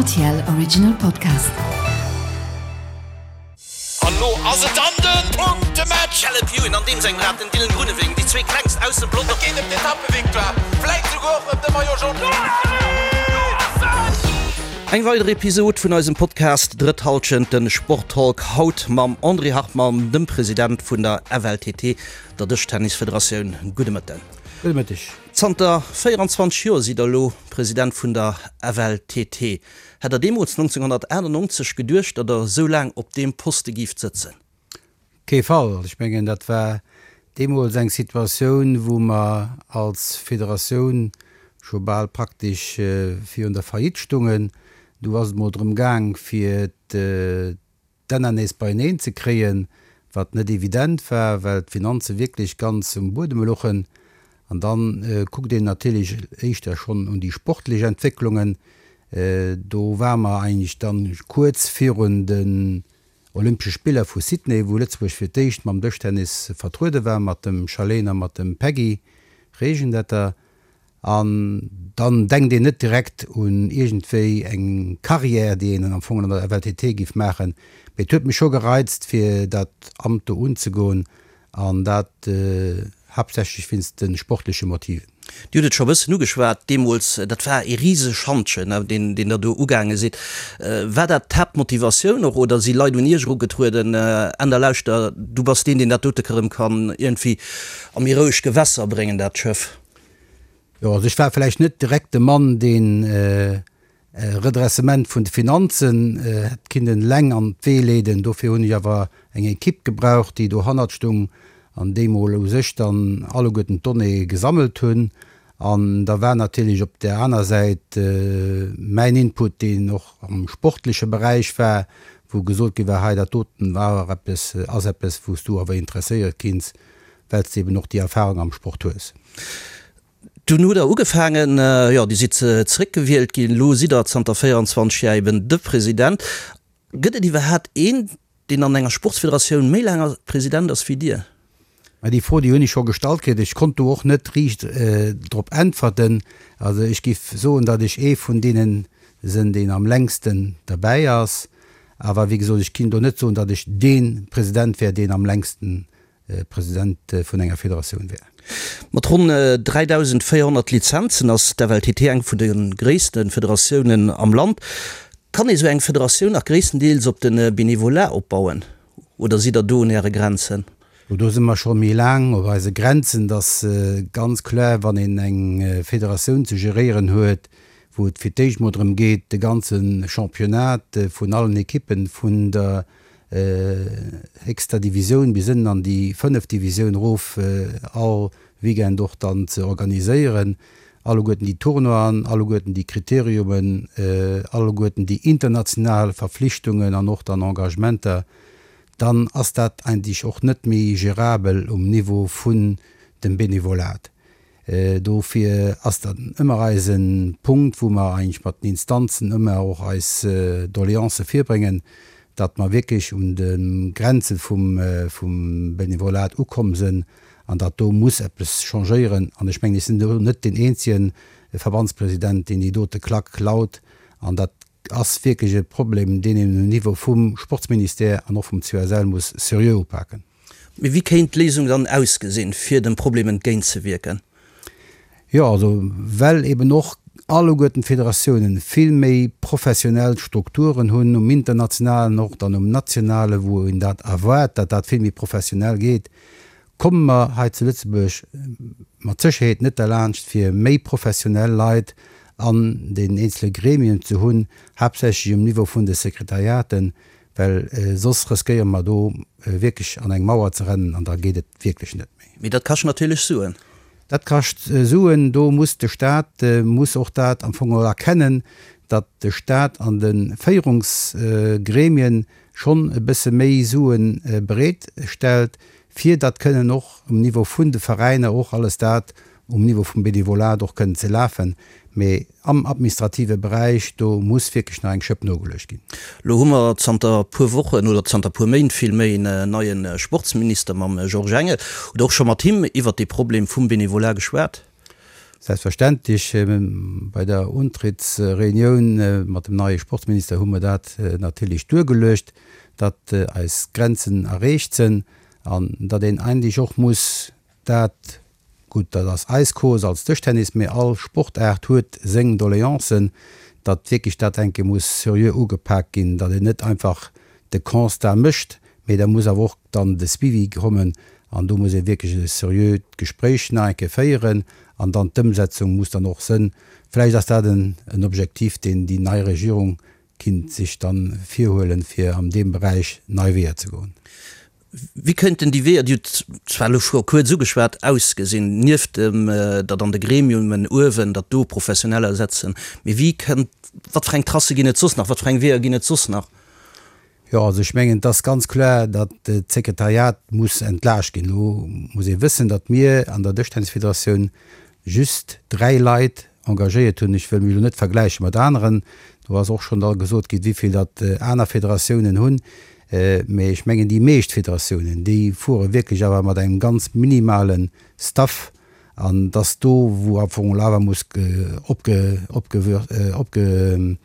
Rtl Original Podcast. An lo ass et dann den Punktematch! Caleb Ewan an deem sengem Rad den Dylan Groenewegen, déi zwee klengst aus dem Pelotong. Et geet ëm d'Etappevictoire, vläit souguer och ëm de Maillot Jaune. Eng weider Episod vun eisem Podcast Drëtt Halschent, den Sporttalk, haut mam André Hartmann, dem President vun der FLTT, der Dëschtennisfederatioun. Gudde Mëtten. Gudde Mëtteg. Zanter 24 Joer sidd der elo President vun der FLTT. Hätt der deemools 1998 geduecht, datt der esou laang op deem Poste giift sëtzen? Kee Fall. Ech mengen, dat war deemools eng Situatioun, wou mer als Federatioun scho bal praktesch virun der Faillite stungen. Du ass et mol drëm gaang, fir d'Enner nees beieneen ze kréien, wat net evident war, well d'Finanze wierklech ganz um Buedem louchen. An da kuckt een natierlech éischter schonn un déi sportlech Entwécklungen. Do ware mer eigentlech dann kuerz virun den Olympesche Spiller vu Sydney, wou Lëtzebuerg fir d'éischt mam Dëschtennis vertruede war, mat dem Charlene a mat dem Peggy Regendetter. An dann denkt een net direkt un iergendwéi eng Carrière, déi een am Fong an der FLTT giff maachen. Mee et huet mech scho gereizt, fir dat Amt do unzegoen, an dat haaptsächlech wéinst de sportleche Motiven. Dir hutt et scho e bëssen ugeschwat, deemools, dat war ee risege Schantjen, deen deen Der do ugaange sidd. War dat d'Haaptmotivatioun och, oder si Leit un Iech erugetrueden, Änder lauschter, du bass deen, deen dat dote erëm kann iergendwéi a méi roueg Gewässer bréngen, dat Schëff? Jo, also ech war vläicht net direkt de Mann, deen e Redressement vun de Finanzen hätt kinnen eleng an d'Wee leeden. Dofir hunn ech awer eng Equipe gebraucht, déi dohannert stung an déi mol u sech dann alleguerten d'Donnéeë gesammelt hunn. An da war natierlech op där aner Säit mäin Input, deen och am sportleche Beräich war, wou gesot gi war, hei dat doten war eppes, ass eppes, wou s du awer interesséiert kinns, well s de eben och déi Erfahrung am Sport hues. Dunn hutt Der ugefaangen, jo, Dir sidd zeréckgewielt ginn, elo sidd Der zanter 24 Jar eben de President. Gëtt et iwwerhaapt een, deen an enger Sportsfederatioun méi laang President ass wéi Dir? Mä déi Fro, déi hunn ech scho gestallt kritt. Ech konnt do och net riicht drop äntwerten. Also ech giff soen, datt ech ee vun deene sinn, deen am längsten derbäi ass. Awer wéi gesot, ech kinn do net soen, datt ech dee President wär, deen am längsten President vun enger Federatioun wär. Mat ronn 3.400 Lizenzen ass d'FLTT eng vun de gréisste Federatiounen am Land. Kann ee sou eng Federatioun nach gréisstendeels op de Benevolat opbauen oder sidd der do un äre Grenzen? Do si mer scho méi laang op eise Grenzen. Et ass ganz kloer, wann een eng Federatioun ze geréieren huet, wou et fir d'éischt mol drëm geet, de ganze Championnat vun allen Ekippen vun der héchster Divisioun bis ënnen an déi fënneft Divisioun erof all Weekend och dann ze organiséieren, alleguerten déi Tournoien, alleguerten déi Kriteriumen, alleguerten déi international Verflichtungen an och dann Engagementer, dann ass dat eigentlech och net méi gérabel um Niveau vun dem Benevolat. Dofir ass dat ëmmer eise Punkt, wou mer eigentlech mat den Instanzen ëmmer och eis Doleancë virbréngen, datt mer wierklech un de Grenze vum Benevolat ukomm sënn an datt do muss eppes changéieren. An ech mengen, ech sinn do net deen eenzege Verbandspresident, deen déi dote Klack laut. An dat ass wierklech e Problem, deen een um Niveau vum Sportsministère an och vum COSL muss seriö upaken. Mee wéi kéint d'Léisung dann ausgesinn, fir dem Problem entgéintzewierken? Jo, also well eben och alleguerten d'Federatiounen vill méi professionell Strukturen hunn, um internationalen och dann um nationalen, wou een dat erwaart, datt dat vill méi professionell geet, komme mer hei zu Lëtzebuerg mat Sécherheet net derlaanscht, fir méi professionell Leit an den eenzele Gremien ze hunn, haaptsächlech um Niveau vun de Sekretariaten, Well soss riskéiere mer do wierklech an eng Mauer ze rennen an da geet et wierklech net méi. Mee dat kascht natierlech Suen. Dat kascht Suen. Do muss de Stat muss och dat am Fong och erkennen, datt de Stat an de Féierungsgremien schonn e bësse méi Sue bereet stellt, fir datt kënnen och um Niveau vun de Veräiner och alles dat um Niveau vum Benevolat och kënnen ze lafen, mee am administrative Beräich, do muss wierklech nach eng Schëpp nogeluecht ginn. Lo hu mer zanter e puer Wochen, oder zanter e puer Méint villméi, en neie Sportsminister mam Georges Engel. Hutt Der och scho mat him iwwert dee Problem vum Benevolat geschwat? Selbstverständlech, bei der Untrittsreunioun mat dem neie Sportsminister hu mer dat natierlech duergeluecht, datt eis Grenzen erreecht sënn an datt een eigentlech och muss dat, gutt, dat ass eis Cause als Dëschtennis, mee all Sportaart huet seng Doleancen, datt wierklech dat eng Kéier muss seriö ugepak ginn, datt een net einfach de Constat mécht, mee da muss awer och dann de Suivi kommen an do muss ee wierklech e seriöt Gespréich nach eng Kéier féieren an dann d'Ëmsetzung muss dann och sënn. Vläicht ass dat en Objektiv, deen déi nei Regierung kinnt sech dann virhuelen, fir an deem Beräich nei Weeër ze goen. Wéi könnten déi Weeër, Dir hutt zwar elo scho kuerz ugeschwat, ausgesinn, nieft dem, datt an de Gremiumen uewen, datt do Professioneller setzen, mee wéi kënnt, wat fir eng Tracë ginn et soss nach, wat fir eng Weeër ginn et soss nach? Jo, also ech mengen, et ass ganz kloer, datt d'Sekretariat muss entlaascht ginn. Elo muss ee wëssen, datt mir an der Dëschtennisfederatioun just 3 Leit engagéiert hunn. Ech wëll mech elo net vergläiche mat aneren, do ass och schonn da gesot ginn, wéi vill datt aner Federatiounen hunn. Mee ech mengen, déi meescht Federatiounen, déi fuere wierklech awer mat engem ganz minimale Staff. An dass do, wou am Fong awer muss opge, opge, opge,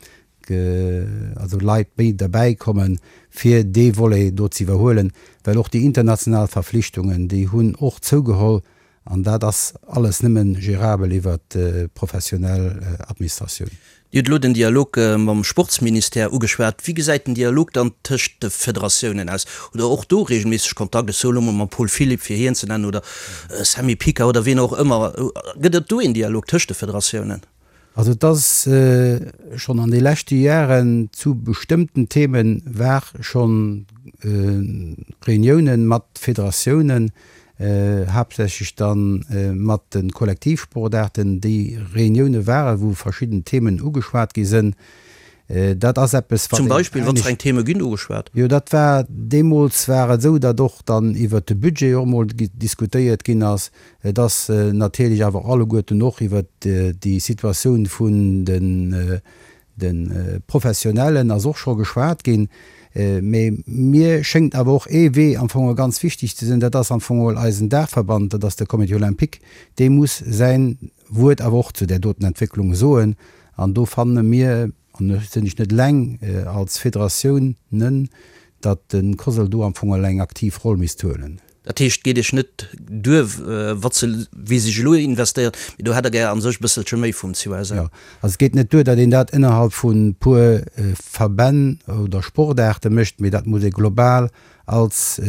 also Leit méi derbäi kommen, fir dee Volet do ze iwwerhuelen, well och déi international Verflichtungen, déi hunn och zougeholl an dat ass alles nëmme gérabel iwwert d'professionell Administratioun. Dir hutt elo den Dialog mam Sportsministère ugeschwat. Wéi gesäit den Dialog dann tëscht de Federatiounen aus? Hutt Der och do reegelméisseg Kontakt? Ech soe elo mol mam Paul Philipp, fir hien ze nennen, oder Sammy Picker oder wien och ëmmer. Gëtt et do een Dialog tëscht de Federatiounen? Also et ass schonn an de leschte Jaren zu bestëmmten Themen war schonn Reuniounen mat Federatiounen, haaptsächlech dann mat de Kollektivsportaarten, déi Reunioune waren, wou verschidden Themen ugeschwat gi sënn. Dat ass eppes, wat Zum Beispill, wat fir eng Theme ginn ugeschwat? Jo, dat war, deemools war et esou, datt och dann iwwert de Budget och emol diskutéiert ginn ass. Et ass natierlech awer alleguerten och iwwert déi Situatioun vun de Professionellen ass och scho geschwat ginn. Mee mir schéngt awer och ee Wee am Fong ganz wichteg ze sinn, dat ass am Fong geholl eisen Daachverband, dat ass de Comité olympique, dee muss säin Wuert awer och zu där doten Entwécklung soen. An do fanne mir, an do sinn ech net eleng, als Federatioun nen, datt de COSL do am Fong eng aktiv Roll misst huelen. Dat heescht, et geet Iech net duer, wat se, wéi sech elo investéiert, mee do hätt Der gär a sech e bësselche méi vum COSL. Jo, also et geet net duer, datt een dat ënnerhalb vu puer Verbänn oder Sportaarte mécht, mee dat muss ee global als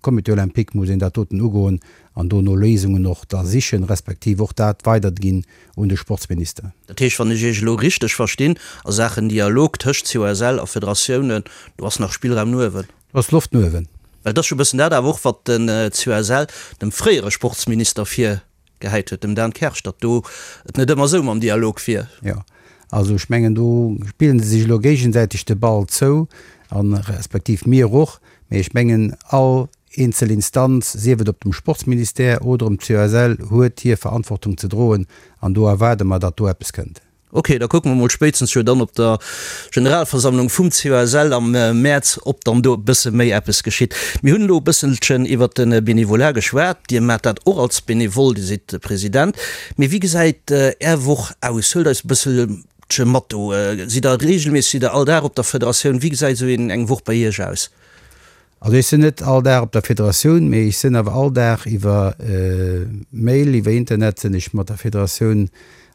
Comité olympique muss een dat doten ugoen an do no Léisungen och da sichen, respektiv och dat weiderginn un de Sportsminister. Dat heescht, wann ech Iech elo richteg verstinn, a Saachen Dialog tëscht COSL a Federatiounen, do ass nach Spillraum no uewen. Do ass Loft no uewen. Well et ass jo e bëssen dat awer och, wat den COSL dem fréiere Sportsminister virgehäit huet, dem Dan Kersch, datt do et net ëmmer esou mam Dialog wier. Jo, also ech mengen, do spillen se sech elo géigesäiteg de Ball zou, a respektiv mir och. Mee ech mengen, all eenzel Instanz, sief et op dem Sportsministère oder um COSL, huet hir Verantwortung ze droen an do erwaarde mer, datt do eppes kënnt. Ok, da kucke mer mol spéitstens jo dann op der Generalversammlung vum COSL am Mäerz, ob dann do e bësse méi eppes geschitt. Mir hunn elo e bësselchen iwwert de Benevolat geschwat. Dir maacht dat och als Benevole, Dir sidd President. Mee wéi gesäit Är Woch aus? Huelt eis e bësselche mat do. Sidd Der reegelméisseg, sidd Der all Dag op der Federatioun? Wéi gesäit esou eng Woch bei Iech aus? Also ech sinn net all Dag op der Federatioun, mee ech sinn awer all Dag iwwer Mail, iwwer Internet sinn ech mat der Federatioun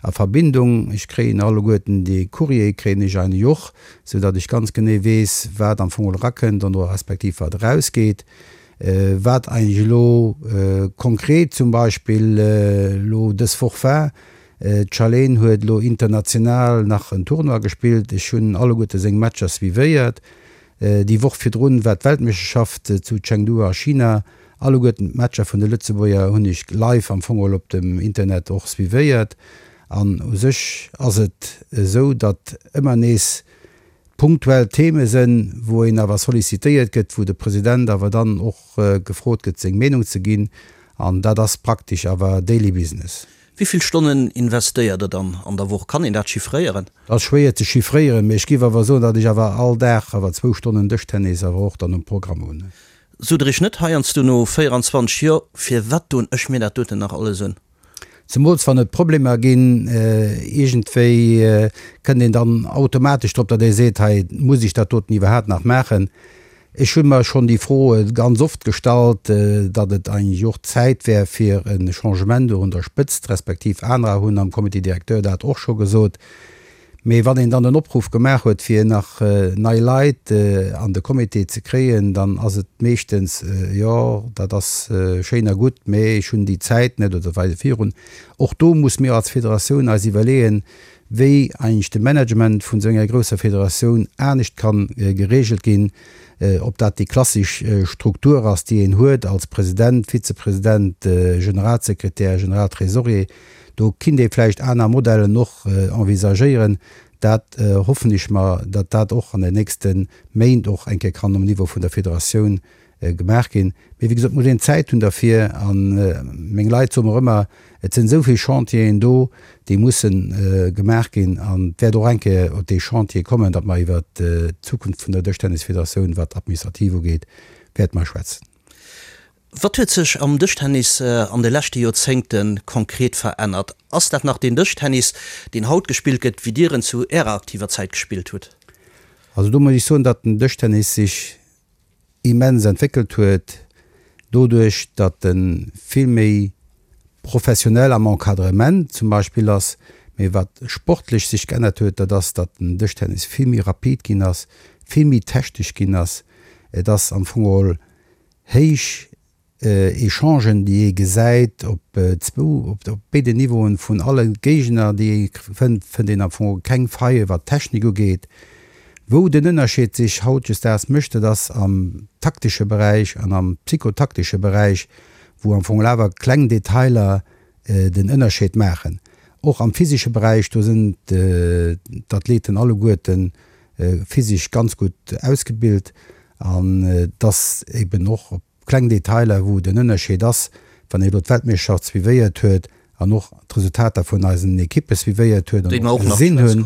a Verbindung. Ech kréien alleguerten déi Courrier kréien ech eigentlech och, sou datt ech ganz genee weess, wat am Fong erakënnt an oder respektiv wat erausgeet. Wat eigentlech elo konkret zum Beispill elo dës Woch war, d'Charlene huet elo international nach en Tournoi gespillt, ech hunn alleguerte seng Matcher suivéiert. Déi Woch virdrun war d'Weltmeeschterschaft zu Chengdu a China. Alleguerten d'Matcher vun de Lëtzebuerger hunn ech live am Fong geholl op dem Internet och suivéiert. An u sech ass et esou, datt ëmmer nees punktuell Theme sënn, wou een awer sollicitéiert gëtt, wou de President awer dann och gefrot gëtt seng Meenung ze ginn. An dat ass praktesch awer daily business. Wéi vill Stonnen investéiert Der dann an der Woch? Kann een dat chiffréieren? Dat ass schwéier ze chiffréieren, mee ech géif awer soen, datt ech awer all Dag awer zwou Stonnen Dëschtennis awer och dann um Programm hunn. Sot Der Iech net heiansdo no 24 Joer, Firwat doen ech mir dat doten nach alles un? Zemools wann et Problemer ginn, iergendwéi kënnt een dann automatesch drop, datt ee seet, hei muss ech dat doten iwwerhaapt nach maachen. Ech hu mer schonn déi Fro ganz oft gestallt, datt et eigentlech och Zäit wär fir e Changement do un der Spëtzt, respektiv anerer hunn am Comité directeur dat och scho gesot. Mee wann een dann den Opruff gemaach huet, fir nach nei Leit an de Comité ze kréien, dann ass et meeschtens, Jo, dat ass schéin a gutt, mee ech hunn déi Zäit net oder weider virun. Och do muss mir als Federatioun eis iwwerleeën, wéi eigentlech de Management vun esou enger grousser Federatioun anescht ka geregelt ginn, ob dat déi klassesch Struktur ass, déi een huet als President, Vizepresident, Generalsekretär, Generaltresorier. Do kinnt ee vläicht aner Modellen och envisagéieren. Dat hoffen ech mer, datt dat och an den nächste Méint och eng Kéier kann um Niveau vun der Federatioun gemaach ginn. Mee wéi gesot, et muss een Zäit hunn derfir. A meng Leit soe mer ëmmer, et sinn esou vill Chantieren do, déi musse gemaach ginn. An et wäert och eng Kéier op dee Chantier kommen, datt mer iwwert d'Zukunft vun der Dëschtennisfederatioun, wat d'Administrativ ugeet, wäerte mer schwätzen. Wat huet sech am Dëschtennis an de leschte Joerzéngte konkret verännert? Ass dat nach deen Dëschtennis, deen haut gespillt gëtt, wéi Dir en zu Ärer aktiver Zäit gespillt hutt? Also do muss ech soen, datt den Dëschtennis sech immens entwéckelt huet, doduerch datt e vill méi professionell am Encadrement zum Beispill ass. Mee wat sportlech sech geännert huet, dat ass, datt den Dëschtennis vill méi rapid ginn ass, vill méi technesch ginn ass. Et ass am Fong geholl héich Echangen, déi ee gesäit op zwou, op béiden Niveauen vun alle Géigner, déi ee fënnt, fënnt een am Fong keng Faille wat d'Technik ugeet. Wou den Ënnerscheed sech hautdesdaags mécht, dat ass am taktesche Beräich an am psychotaktesche Beräich, wou am Fong awer kleng Detailer den Ënnerscheed maachen. Och am physesche Beräich, do sinn d'Athleten alleguerte physesch ganz gutt ausgebilt an et ass eben och op kleng Detailer, wou den Ënnerscheed ass, wann ee elo d'Weltmeeschterschaft suivéiert huet an och d'Resultater vun eisen Ekippe suivéiert huet an och gesinn hunn,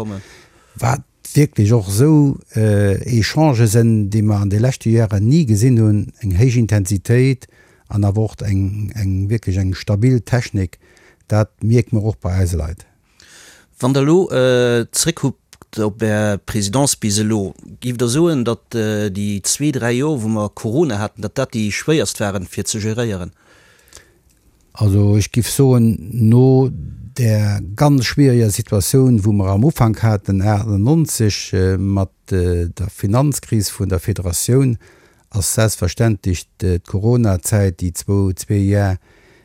wat wierklech och esou Echangë sinn, déi mer an de leschte Jaren ni gesinn hunn, eng héich Intensitéit an awer och eng wierklech eng stabil Technik, dat mierke mer och bei eise Leit. Wann Der elo zréckkuckt op Är Présidence bis elo, géift Der soen, datt déi zwee, dräi Joer, wou mer Corona haten, datt dat déi schwéierst waren, fir ze geréieren? Also ech géif soen, no där ganz schwiereger Situatioun, wou mer am Ufank haten 98 mat der Finanzkris vun der Federatioun, ass selbstverständlech d'Coronazäit, déi zwou, zwee Jar,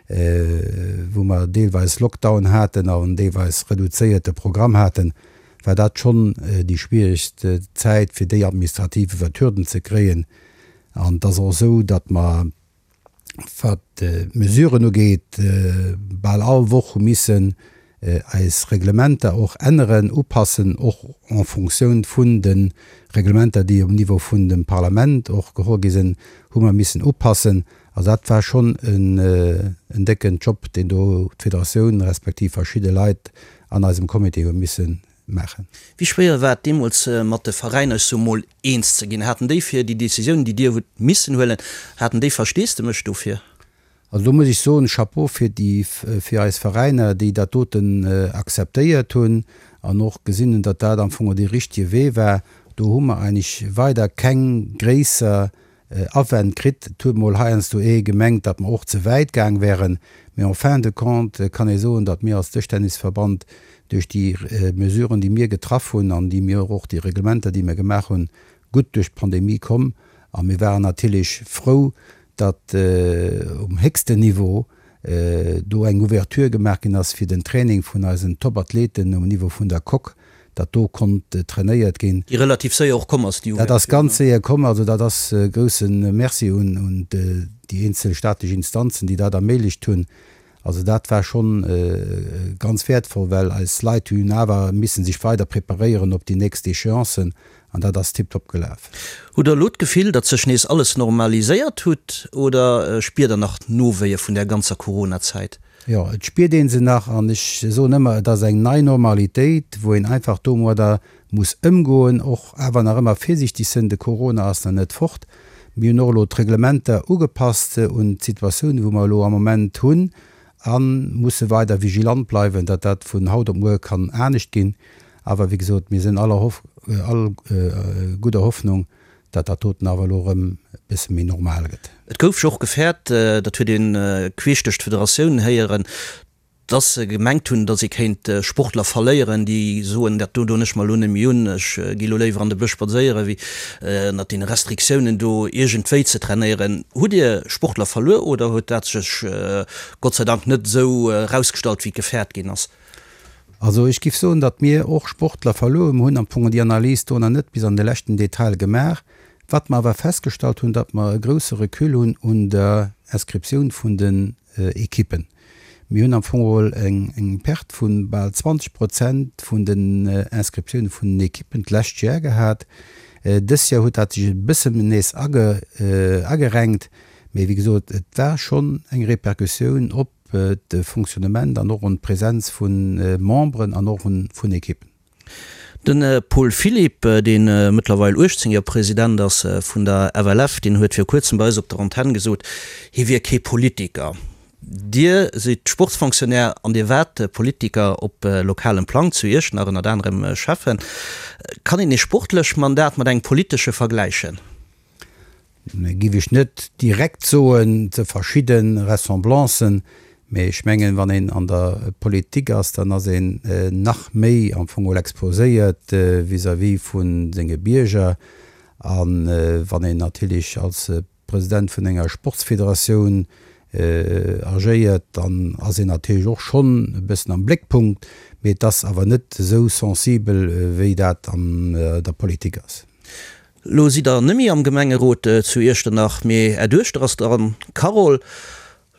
wou mer deelweis Lockdown haten an deelweis reduzéierte Programm haten, war dat schonn déi schwieregst Zäit, fir déi administrativ iwwer d'Hürden ze kréien. An et ass och esou, datt mer, wat d'Mesuren ugeet, bal all Woch hu missen eis Reglementer och änneren, upassen, och en Fonctioun vun de Reglementer, déi um Niveau vun dem Parlament och geholl gi sinn, hu mer missen upassen. Also dat war schonn en décken Job, deen do d'Federatioun respektiv verschidde Leit an eisem Comité hu misse maachen. Wéi schwéier war et deemools mat de Veräiner, ech soe mol, eens ze ginn? Haten déi fir déi Décisioun, déi Dir hutt missen huelen, haten déi Versteesdemech dofir? Also do muss ech soen, Chapeau fir déi, fir eis Veräiner, déi dat doten akzeptéiert hunn an och gesinn hunn, datt dat am Fong dee richtige Wee war. Do hu mer eigentlech weider keng gréisser Awänn kritt. Et huet mol heiansdo ee gemengt, datt mer och ze wäit gaang wären, mee en fin de compte kann ee soen, datt mir als Dëschtennisverband duerch déi Mesuren, déi mir getraff hunn an déi mir och, déi Reglementer, déi mir gemaach hunn, gutt duerch d'Pandemie komm. A mir waren natierlech frou, datt um héchsten Niveau do eng Ouverture gemaach ginn ass fir den Training vun eisen Top-Athleten um Niveau vun der Coque, datt do konnt trainéiert ginn. Déi relativ séier och komm ass, déi Ouverture. Dat ass ganz séier komm. Also dat ass e grousse Merci un déi eenzel staatlech Instanzen, déi dat erméiglecht hunn. Also dat war schonn ganz wäertvoll, well eis Leit hunn awer missen sech weider preparéieren op déi nächst Échéancen an dat ass tiptop gelaf. Hutt Der elo d'Gefill, datt sech nees alles normaliséiert hutt oder spiert Der nach d'Nowéie vun där ganzer Corona-Zäit? Jo, et spiert ee se nach an ech soen ëmmer, et ass eng nei Normalitéit, wou een einfach domadder muss ëmgoen, och awer nach ëmmer virsiichteg sënn, de Corona ass nach net fort. Mir hunn och elo d'Reglementer ugepasst un d'Situatioun, wou mer elo am Moment hunn. A musse weider vigilant bleiwen, datt dat vun haut op muer kann anescht ginn. Awer wéi gesot, mir sinn aller Hoff, all gudder Hoffnung, datt dat doten awer elo erëm e bësse méi normal gëtt. Et gouf jo och gefäert, dat huet ee queesch duerch d'Federatioun héieren, datt se gemengt hunn, datt ee kéint Sportler verléieren, déi soen, dat do doen ech mer elo net méi un, ech gi elo léiwer an de Bësch spadséieren, wéi ënnert deene Restriktiounen do iergendwéi ze trainéieren. Hutt Dir Sportler verluer oder huet dat sech Gott sei Dank net esou erausgestallt, wéi et gefäert ginn ass? Also ech giff soen, datt mir och Sportler verluer hunn. Mir hunn am Fong déi Analys do nach net bis an de leschten Detail gemaach. Wat mer awer festgestallt hunn, datt mer e grousse Recul hunn un der Inscriptioun vun den Ekippen. Mir hunn am Fong geholl eng Perte vu bal 20 Prozent vun den Inscriptioune vun den Ekippen d'lescht Jar gehat. Dës Jar huet dat sech e bëssen nees agerenkt, mee wéi gesot, et war schonn eng Repercussioun op de Fonctionnement an och un d'Presenz vu Memberen an och vun Ekippen. De Paul Philipp, dee mëttlerweil 18 Joer President ass vun der FLF, deen huet viru kuerzem bei eis op der Antenn gesot, hie wier kee Politiker. Dir sidd Sportsfonctionnaire an Dir waart Politiker op lokalem Plang, zu Iechternach ënnert anerem Schäffen. Kann een ee sportlech Mandat mat engem politesche vergläichen? Giff ech net direkt soen, ze verschidde Ressemblancen, mee ech mengen, wann een an der Politik ass, dann ass een nach méi am Fong geholl exposéiert vis-à-vis vu senge Bierger. A wann een natierlech als President vun enger Sportsfederatioun agéiert, dann ass een natierlech och schonn e bëssen am Bléckpunkt, mee et ass awer net esou sensibel, wéi dat an der Politik ass. Lo sidd der nemmi am Gemengerot zu Iechternach, mee är Duechter ass dran, d'Carole.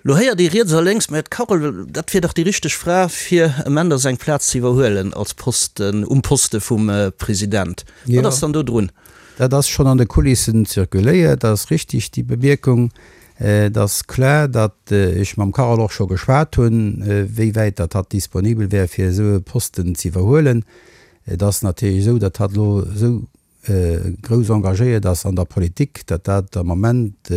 Lo héiert ee riets a lénks, mä d'Carole, dat wier dach déi richteg Fra fir em Änder seng Plaz ze iwwerhuelen als Posten, um Poste vum President. Wat ass dann do drun? Dat ass schonn an de Kulissen zirkuléiert, dat ass richtig, déi Bemierkung. Et ass kloer, datt ech mam Carole och scho geschwat hunn, wéi wäit datt hatt disponibel wär fir esou e Posten ze iwwerhuelen. Et ass natierlech esou, datt hatt elo esou grouss engagéiert ass an der Politik, datt dat am Moment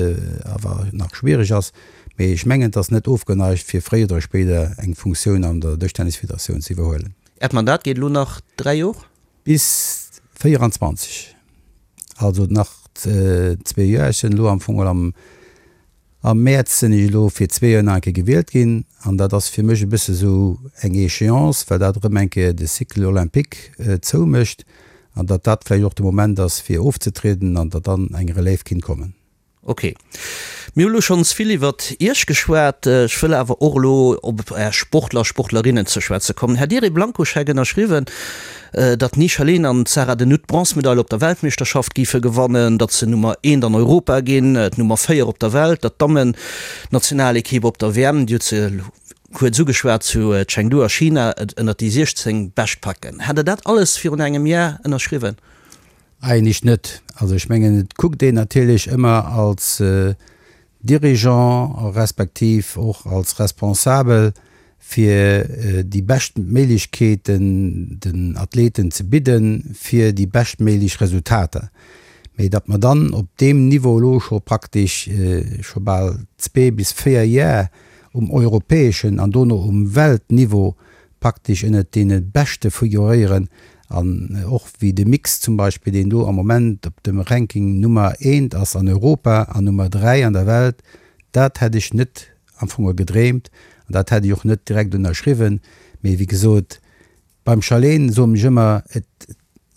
awer nach schwierig ass. Mee ech mengen, et ass net ofgeneigt, fir fréier oder spéider eng Funktioun an der Dëschtennisfederatioun ze iwwerhuelen. Äert Mandat geet elo nach 3 Jor? Bis 24, also nach zwee Joer. Ech sinn elo am Fong am Am Mäerz sinn ech elo fir zwee Joer nach eng Kéier gewielt ginn an dat ass fir mech e bësse sou eng Échéance, well dat erëm eng Kéier de Cycle olympique zoumécht an datt dat vläicht och de Moment ass fir ofzetrieden an datt dann eng Relève kinnt kommen. Ok. Mir hu lo schonns vill iwwert Iech geschwat. Ech wëll awer och elo op Är Sportler a Sportlerinnen ze schwätze kommen. Hätt Dir ee Blankoscheck ënnerschriwwen, datt d'Nisha Leen an d'Sarah de Nutte d'Bronzemedail op der Weltmeeschterschaft géife gewannen, datt se Nummer eent an Europa ginn, d'Nummer 4 op der Welt, datt d'Dammen-Nationalekipp op der WM, Dir hutt se kuerz ugeschwat, zu Chengdu a China, et ënnert déi 16 Bescht packen. Hätt Der dat alles virun engem Jar ënnerschriwwen? Eigentlech net. Also ech mengen, et kuckt een natierlech ëmmer als Dirigeant respektiv och als Responsabel fir déi bescht Méiglechkeeten den Athleten ze bidden, fir déi beschtméiglech Resultater. Mee datt mer dann op deem Niveau elo scho praktesch scho bal zwee bis véier Jar um europäeschen an dono um Weltniveau praktesch ënnert deene Beschte figuréieren an och wéi de Mix zum Beispill, deen do am Moment op dem Ranking Nummer eent ass an Europa an Nummer 3 an der Welt, dat hätt ech net am Fong gedreemt an dat hätt ech och net direkt ënnerschriwwen. Mee wéi gesot, beim Charlene soen ech ëmmer, et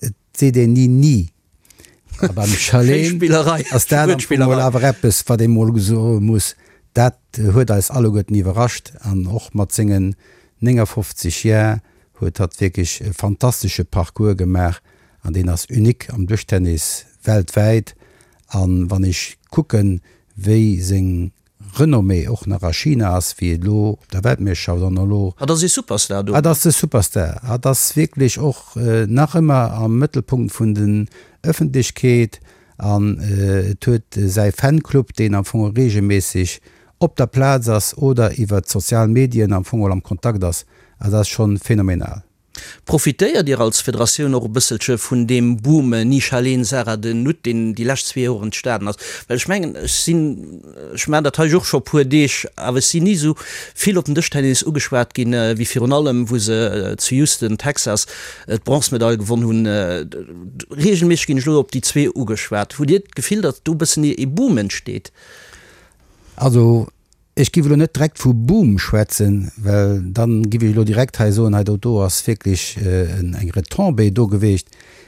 et seet een ni ni. A beim Charlene ass dat am Fong mol awer eppes, wat ee mol soe muss, dat huet eis alleguerten iwwerrascht an och mat sengen 59 Jar huet hatt wierklech e fantastesche Parcours gemaach an deen ass unique am Dëschtennis weltwäit. An wann ech kucken, wéi seng Renommée och nach a China ass, wéi et elo op der Weltmeeschterschaft an elo. Hatt ass ee Superstar do. Hatt ass de Superstar. Hatt ass wierklech och nach ëmmer am Mëttelpunkt vun den Ëffentlechkeet an et huet säi Fanclub, deen am Fong reegelméisseg op der Plaz ass oder iwwer d'sozial Medien am Fong am Kontakt ass. Also dat ass schonn phänomenal. Profitéiert Dir als Federatioun och e bësselche vun deem Boom Nisha Leen, Sarah de Nutte, deen déi lescht zwee Joer entstanen ass? Well ech mengen, ech sinn, ech maachen dat hei jo och scho e puer Deeg, awer ech sinn ni esou vill op den Dëschtennis ugeschwat ginn, wéi virun allem wou se zu Houston, Texas, d'Bronzemedail gewonn hunn. Reegelméisseg ginn ech elo op déi zwee ugeschwat. Hutt Dir d'Gefill, datt do e bëssen ee Boom entsteet? Also Ech giff elo net direkt vu Boom schwätzen, well dann giff ech elo direkt hei soen, hei do do ass wierklech eng Retombée do geweecht.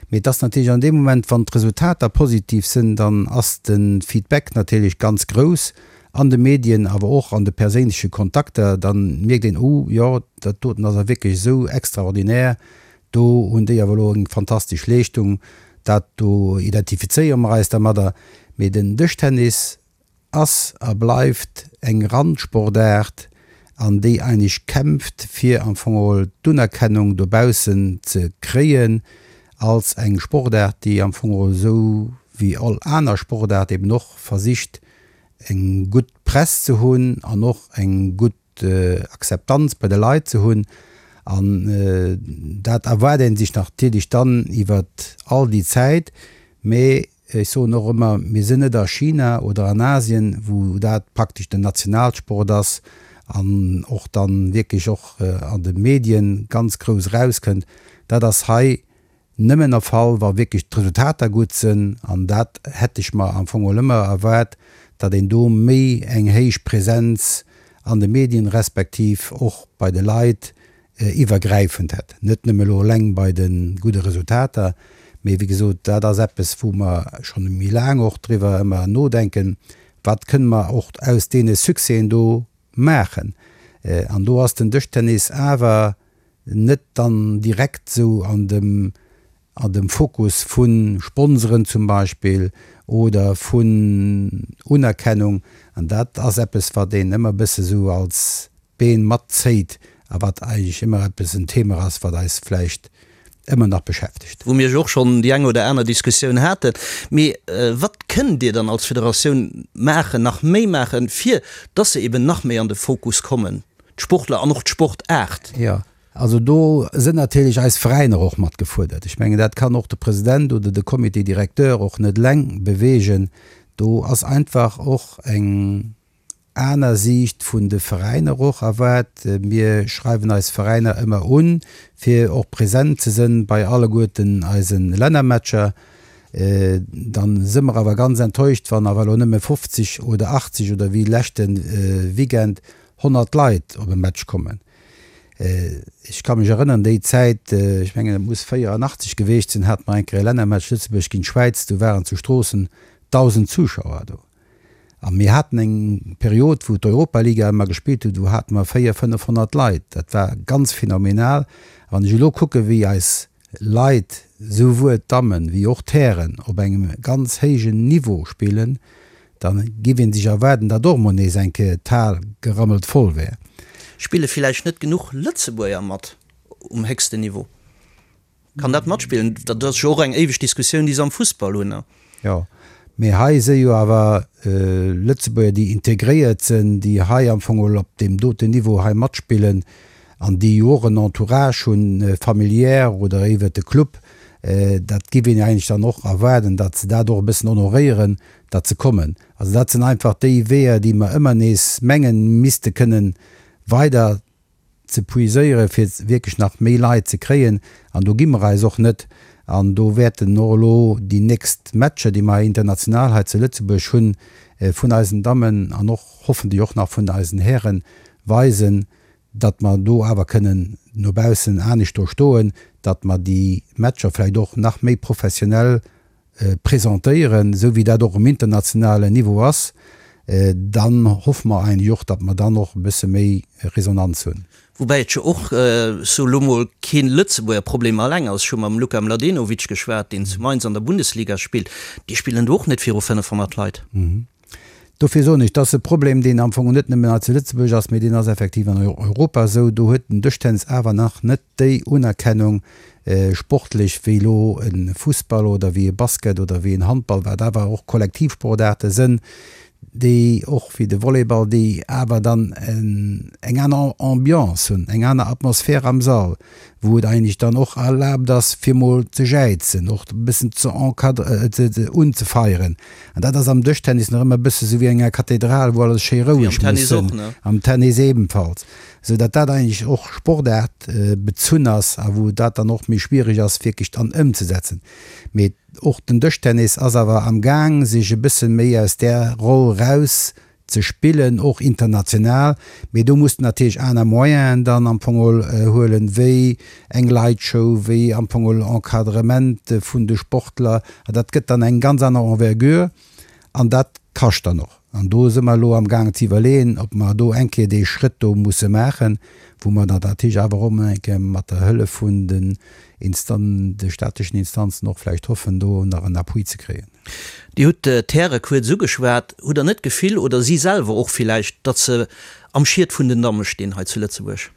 Mee et ass natierlech an deem Moment, wann d'Resultater positiv sënn, dann ass de Feedback natierlech ganz grouss an de Medien, awer och an de perséinleche Kontakter. Dann mierkt een, oh jo, dat doten ass awer wierklech esou extraordinär, do hunn déi awer elo eng fantastesch Leeschtung, dat do identifizéiere mer eis dermadder. Mee den Dëschtennis ass a bleift eng Randsportaart an déi eigentlech kämpft fir am Fong geholl d'Unerkennung dobaussen ze kréien als eng Sportaart déi am Fong geholl esou wéi all aner Sportaart eben och versicht eng gutt Press ze hunn an och eng gutt Akzeptanz bei de Leit ze hunn. An dat erwaart ee sech natierlech dann iwwert all déi Zäit, mee Ech soen och ëmmer, mir sinn net a China oder an Asien, wou dat praktesch den Nationalsport ass an och dann wierklech och an de Medien ganz grouss erauskënnt. Dat ass hei nëmmen der Fall, wa wierklech d'Resultater gutt sinn. An dat hätt ech mer am Fong och ëmmer erwaart, datt een do méi eng héich Präsenz an de Medien respektiv och bei de Leit iwwergräifend hätt, net nëmme elo eleng bei de gudde Resultater, mee wéi gesot, dat ass eppes, wou mer schonn méi laang och driwwer ëmmer nodenken, wat kënne mer och aus deene Succèsen do maachen. An do ass den Dëschtennis awer net dann direkt esou an dem, an dem Fokus vu Sponsoren zum Beispill oder vun Unerkennung. An dat ass eppes, wat een ëmmer e bësse sou als Been matzéit a wat eigentlech ëmmer eppes en Thema ass, wat eis vläicht ëmmer nach beschäftegt. Wou mir jo och schonn déi eng oder aner Diskussioun haten. Mee wat kënnt Dir dann als Federatioun maachen, nach méi maachen, fir dass se eben nach méi an de Fokus kommen, d'Sportler an och d'Sportaart? Jo, Also do sënn natierlech eis Veräiner och mat gefuerdert. Ech mengen, dat kann och de President oder de Comité directeur och net eleng beweegen. Do ass einfach och eng aner Siicht vun de Veräiner och erwaart. Mir schreiwen eis Veräiner ëmmer un, fir och present ze sënn bei alleguerten eise Lännermatcher. Dann së mer awer ganz enttäuscht, wann awer elo nëmme 50 oder 80 oder wéi leschte Weekend 100 Leit op e Match kommen. Ech ka mech erënneren, déi Zäit, ech mengen et muss 84 geweecht sinn, hate mer eng Kéier e Lännermatch Lëtzebuerg géint d'Schwäiz, do waren zu Stroossen 1.000 Zuschauer do. A mir haten eng Period, wou d'Europaliga ëmmer gespillt huet, do hate mer 400, 500 Leit. Dat war ganz phänomenal. A wann ech elo kucke wéi eis Leit, souwuel d'Dammen wéi och d'Hären, op engem ganz héijen Niveau spillen, Da giff een sech erwaarden, datt och mol nees eng Kéier d'Hal gerammelt voll wär. Spille villäicht net genuch Lëtzebuerger mat um héchsten Niveau? Kann dat matspillen? Dat ass jo och eng éiweg Diskussioun, déi se am Fussball hunn. Jo, mee hei si jo awer Lëtzebuerger, déi integréiert sinn, déi hei am Fong op deem doten Niveau hei matspillen an déi jo och en Entourage hunn, familiär oder iwwert de Club. Dat giff een eigentlech dann och erwaarden, datt se dat och e bëssen honoréieren, datt se kommen. Also dat sinn einfach déi Weeër, déi mer ëmmer nees mengen, misste kënnen weider ze puiséieren, fir wierklech nach méi Leit ze kréien. An do gi mer eis och net. An do wäerten och elo déi nächst Matcher, déi mer international hei zu Lëtzebuerg hunn, vun eisen Dammen an och hoffentlech och nach vun eisen Hären, weisen, datt mer do awer kënnen no baussen anescht do stoen, datt mer déi Matcher vläicht och nach méi professionell presentéieren, esou wéi dat och um internationalen Niveau ass, dann hoffe mer eigentlech och, datt mer dann och e bësse méi Resonanz hunn. Woubäi et jo och, sou elo mol, kee Lëtzebuerger Problem alleng ass. Ech hu mam Luka Mladenovic geschwat, deen zu Mainz an der Bundesliga spillt. Déi spillen do och net viru 500 Leit. Dofir soen ech, dat ass e Problem, deen am Fong net nëmmen hei zu Lëtzebuerg ass, mee deen ass effektiv an Europa esou. Do huet den Dëschtennis awer nach net déi Unerkennung sportlech wéi elo e Fussball oder wéi e Basket oder wéi en Handball, wat awer och Kollektivsportaarte sënn, déi och wéi de Volleyball, déi awer dann eng aner Ambiance hunn, eng aner Atmosphär am Sall. Wou et eigentlech dann och erlaabt ass, fir mol ze jäizen, och e bëssen ze encadre, unzefeieren. An dat ass am Dëschtennis nach ëmmer e bësse sou wéi an enger Kathedral, wou alles schéi roueg muss sinn. Am Tennis ebenfalls. Sou datt dat eigentlech och Sportaart bezunn ass a wou dat dann och méi schwiereg ass, wierklech dann ëmzesetzen. Mee och den Dëschtennis ass awer am Gaang, sech e bësse méi aus där Roll raus ze spillen, och international, mee do muss de natierlech aner Moyenen dann am Fong geholl huelen, wéi eng Lightshow, wéi am Fong geholl Encadrement vun de Sportler, an dat gëtt dann eng ganz aner Envergure an dat kascht dann och. An do si mer elo am gaangen ze iwwerleeën, ob mer do eng Kéier dee Schrëtt do musse maachen, wou mer dann natierlech awer och eng Kéier mat der Hëllef vun den Instan-, de staatlechen Instanzen och vläicht hoffen, do nach en Appui ze kréien. Dir hutt d'Häre kuerz ugeschwat. Hutt Der net d'Gefill, oder si selwer och villäicht, datt se am Schiet vun den Damme stinn hei zu Lëtzebuerg?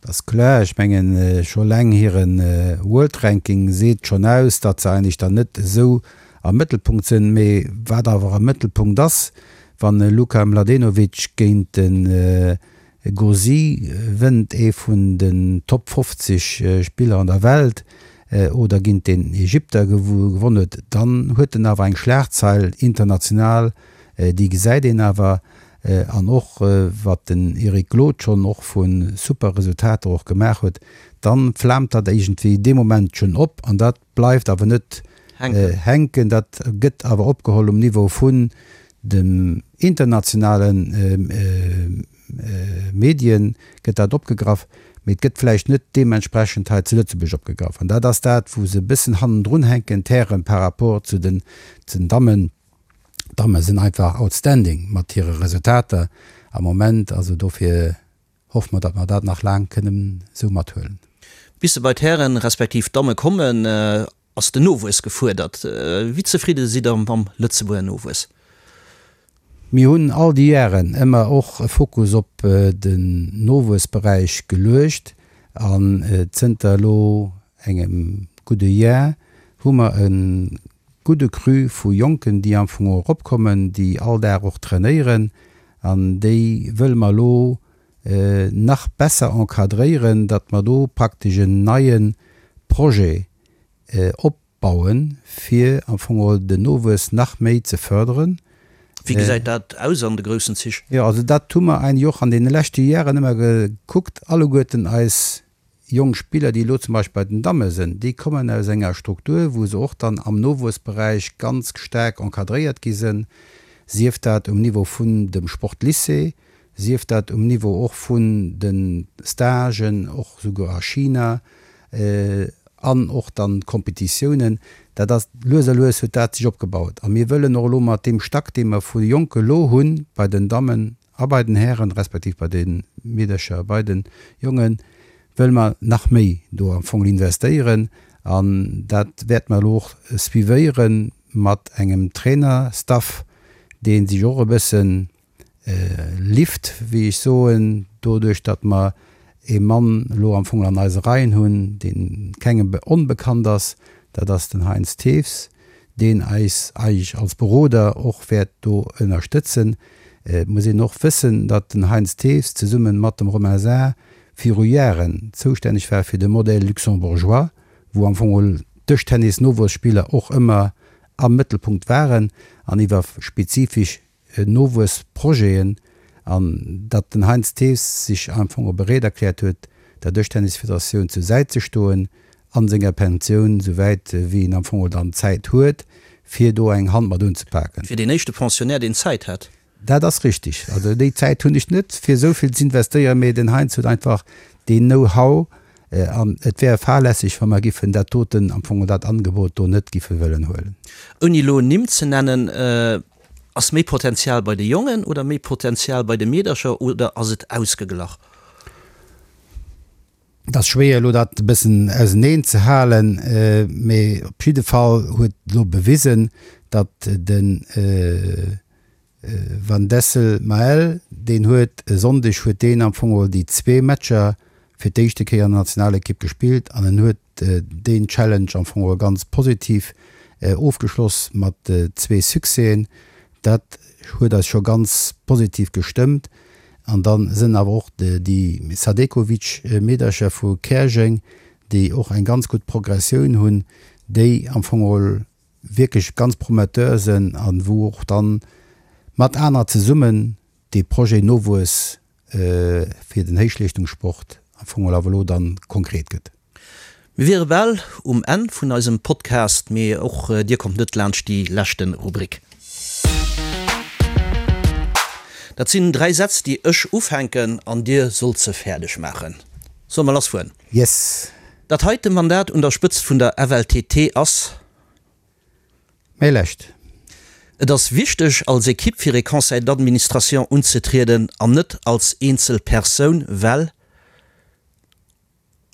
Dat ass kloer. Ech mengen, scho eleng hire World Ranking seet schonn aus, datt se eigentlech dann net esou am Mëttelpunkt sinn. Mee wat awer am Mëttelpunkt ass, wann e Luka Mladenovic géint de Gauzy wënnt ee vun den Top 50 Spiller an der Welt oder géint den Ägypter gewonn huet, dann huet en awer eng Schlagzeil international, déi gesäit een awer. An och wat den Eric Glod schonn och vu super Resultater och gemaach huet, dann flaamt dat iergendwéi dee Moment schonn op an dat bleift awer net hänken, dat gëtt awer opgeholl um Niveau vun dem internationale Medien gëtt dat opgegraff, mee et gëtt vläicht net deementsprechend hei zu Lëtzebuerg opgegraff. An dat ass dat, wou se e bëssen hannendrun hänken, d'Hären, par rapport zu den Dammen. D'Damme sinn einfach outstanding mat hire Resultater am Moment. Also dofir hoffe mer, datt mer dat nach laang kënnen esou mathuelen. Bis se bei d'Hären respektiv d'Damme kommen, ass den Nowuess gefuerdert. Wéi zefridde sidd Der mam Lëtzebuerger Nowuess? Mir hunn all déi Jaren ëmmer och e Fokus op den Nowuessberäich geluecht an zënter elo engem gudde Jar hu mer e gudde Cru vu Jonken, déi am Fong eropkommen, déi all Dag och trainéieren an déi wëlle mer elo nach besser encadréieren, datt mer do praktesch en neie Projet opbauen, fir am Fong geholl den Nowuess nach méi ze förderen. Wéi gesäit dat aus an de groussen Zich? Jo, also dat hu mer eigentlech och an deene leschte Jaren ëmmer gekuckt, alleguerten eis jonk Spiller, déi elo zum Beispill bei den Damme sinn, déi kommen aus enger Struktur, wou se och dann am Nowuessberäich ganz staark encadréiert gi sinn, sief dat um Niveau vun dem Sportlycée, sief dat um Niveau och vun de Stagen, och souguer a China, an och dann d'Kompetitiounen. Dat ass, lues a lues huet dat sech opgebaut. A mir wëllen och elo mat deem Stack, dee mer vu Jonke elo hunn, bei den Dammen a bei den Hären, respektiv bei de Meedercher a bei de Jongen, wëlle mer nach méi do am Fong investéieren. An dat wäerte mer elo och suivéiere mat engem Trainerstaff, dee sech och e bëssen Lift, wéi ech soen, doduerch datt mer ee Mann elo am Fong an eise Reien hunn, dee kengem onbekannt ass, dat ass den Heinz Thews, deen eis eigentlech als Beroder och wäert do ënnerstëtzen. Et muss een och wëssen, datt den Heinz Thews zesumme mat dem Romain Saar viru Jaren zoustänneg war fir de Modèle luxembourgeois, wou am Fong d'Dëschtennis-Nowuesspiller och ëmmer am Mëttelpunkt waren an iwwer spezifesch Nowuessprojeten an datt den Heinz Thews sech am Fong och bereet erkläert huet, der Dëschtennisfederatioun zur Säit ze stoen a senger Pensioun, souwäit wéi en am Fong dann Zäit huet, fir do eng Hand mat unzepaken. Fir deen éischte Pensionnaire, deen Zäit hätt. Dat ass richtig. Also déi Zäit hunn ech net, fir esou vill z'investéieren, mee den Heinz huet einfach deen Know-how an et wär fahrlässeg, wa mer giffen dat doten, am Fong dat Angebot do net giffe wëllen huelen. Ouni elo Nimm ze nennen, Ass méi Potenzial bei de Jongen oder méi Potenzial bei de Meedercher oder ass et ausgeglach? Et ass schwéier elo dat e bëssen auseneen ze halen, mee op jidde Fall huet elo bewisen, datt de Van Dessel Maël, deen huet e Sonndeg huet deen am Fong geholl déi zwee Matcher fir d'éischte Kéier an der Nationalekipp gespillt an en huet deen Challenge am Fong och ganz positiv ofgeschloss mat zwee Succèsen. Dat huet eis scho ganz positiv gestëmmt. An da sënn awer och déi Sadekovic-Meedercher vu Käerjeng. déi och eng ganz gutt Progressioun hunn, déi am Fong geholl wierklech ganz prometteur sënn an wou och dann mat anerer zesummen dee Projet Nowuess fir den Héichleeschtungssport am Fong geholl awer elo dann konkret gëtt. Mir wiere bal um Enn vun eisem Podcast, mee och dir kommt net laanscht déi leschte Rubrik. Dat sinn 3 Sätz, déi ech ufänken an dir sollt se fäerdeg maachen. Solle mer lassfueren? Yes! Dat heite Mandat un der Spëtzt vun der FLTT ass. Mäi lescht. Et ass wichteg, als Ekipp fir ee Conseil d'administration unzetrieden an net als eenzel Persoun, well.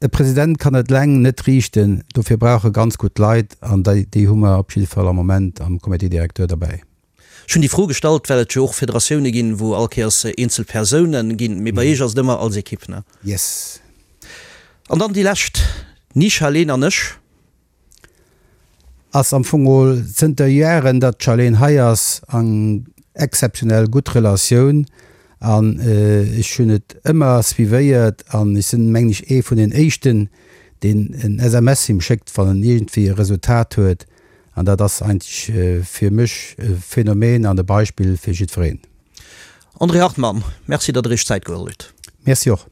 E President kann et eleng net riichten, dofir brauch e ganz gutt Leit an déi hu mer op jidde Fall am Moment am Comité directeur derbäi. Ech hunn déi Fro gestallt, well et jo och Federatioune ginn, wou all Kéiers eenzel Persoune ginn, mee bei Iech ass et ëmmer als Ekipp, ne? Yes. An dann déi lescht, Ni Charlene an ech. Ass am Fong geholl zënter Jaren, datt d'Charlene hei ass, eng exzeptionell gutt Relatioun an ech hunn et ëmmer suivéiert an ech sinn, mengen ech, ee vun den éischten, deen en SMS him schéckt, wann en iergendwéi e Resultat huet an dat ass eigentlech fir mech e Phänomen an e Beispill fir jiddwereen. André Hartmann, Merci, datt Der Iech Zäit geholl hutt. Merci och.